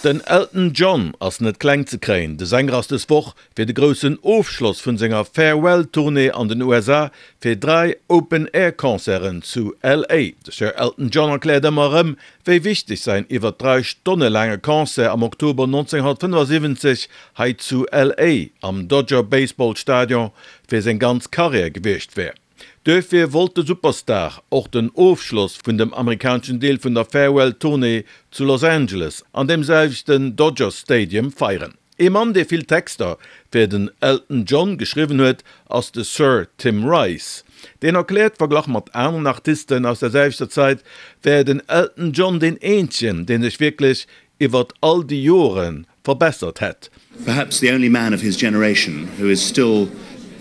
Den Elton John ass net kleng ze kréien. De Sänger ass des Woch fir de groussen Ofschloss vun senger Farewell Tournée an den USA fir 3 Open Air Concerten zu LA. De Sir Elton John erkläert ëmmer erëm, wéi wichteg säin iwwer 3 Stonne laange Concert am Oktober 1975 hei zu LA am Dodger Baseball Stadion fir seng ganz Karriär gewiescht wär. Duerfir wollt de Superstar och den Ofschloss vun dem amerikaneschen Deel vun der Farewell Tournée zu Los Angeles an deem selwechten Dodger Stadium feieren. Ee Mann, dee vill Texter fir den Elton John geschriwwen huet, ass de Sir Tim Rice. Deen erkläert, verglach mat aneren Artisten aus der selwechter Zait, wär den Elton John deen eenzegen, dee sech wierklech iwwert all déi Jore verbessert hätt. Perhaps the only man of his generation who is still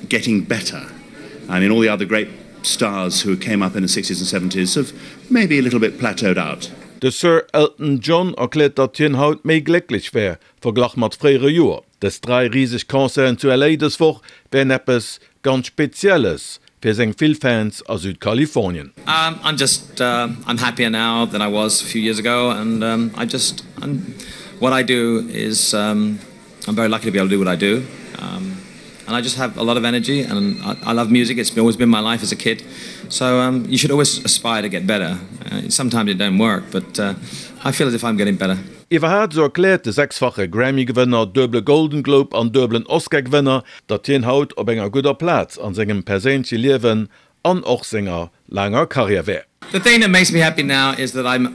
getting better. I mean all the other great stars who came up in the sixties and seventies have maybe a little bit plateaued out. De Sir Elton John erkläert, datt hien haut méi glécklech wär, verglach mat fréiere Joer. Dës 3 riseg Concerten zu LA dës Woch wären eppes ganz Spezielles fir seng vill Fans a Südkalifornien. I'm just I'm happier now than I was a few years ago and I just what I do is I'm very lucky to be able to do what I do and I just have a lot of energy and I love music it's always been my life as a kid so you should always aspire to get better sometimes it don't work but I feel as if I'm getting better. Iwwerhaapt, esou erkläert de sechsfache Grammy-Gewënner, duebele Golden Globe an duebelen Oscar-Gewënner, datt hien haut op enger gudder Plaz an sengem perséinleche Liewen an och senger laanger Karriär wär. The thing that makes me happy now is that I'm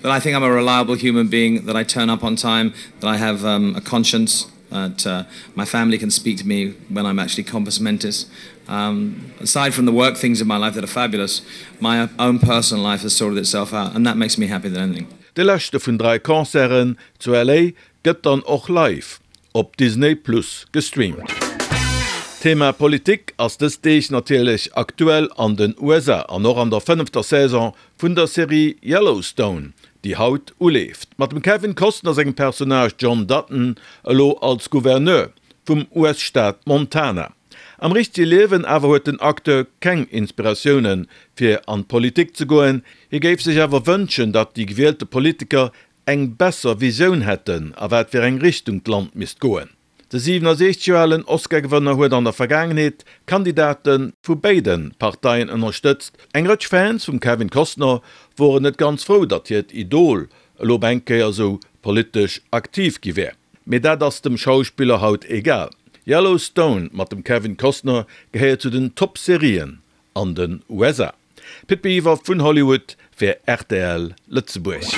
that I think I'm a reliable human being, that I turn up on time, that I have a conscience, that my family can speak to me when I'm actually compass mentis. Aside from the work things in my life that are fabulous, my own personal life has sorted itself out and that makes me happier than anything. De leschte vun 3 Concerten zu LA gëtt dann och live op Disney Plus gestreamt. D'Thema Politik ass dës Deeg natierlech aktuell an den USA an och an der fënnefter Saison vun der Serie Yellowstone, déi haut uleeft. Mat dem Kevin Costner sengem Personnage John Dutton elo als Gouverneur vum US-Staat Montana. Am richtege Liewen awer huet den Acteur keng Inspiratioune fir an d'Politik ze goen. Hie géif sech awer wënschen, datt déi gewielte Politiker eng besser Visioun hätten, a wat fir eng Richtung d'Land misst goen. De 67 Joer alen Oscar-Gewënner huet an der Vergaangenheet Kandidate vu béide Parteien ënnerstëtzt. Eng Rëtsch Fans vum Kevin Costner woren net ganz frou, datt hiert Idol elo op eng Kéier esou politesch aktiv gi wär. Mee dat ass dem Schauspiller haut egal. Yellowstone mat dem Kevin Costner gehéiert zu den Top-Serien an den USA. Pit Biwer vun Hollywood fir rtl Lëtzebuerg.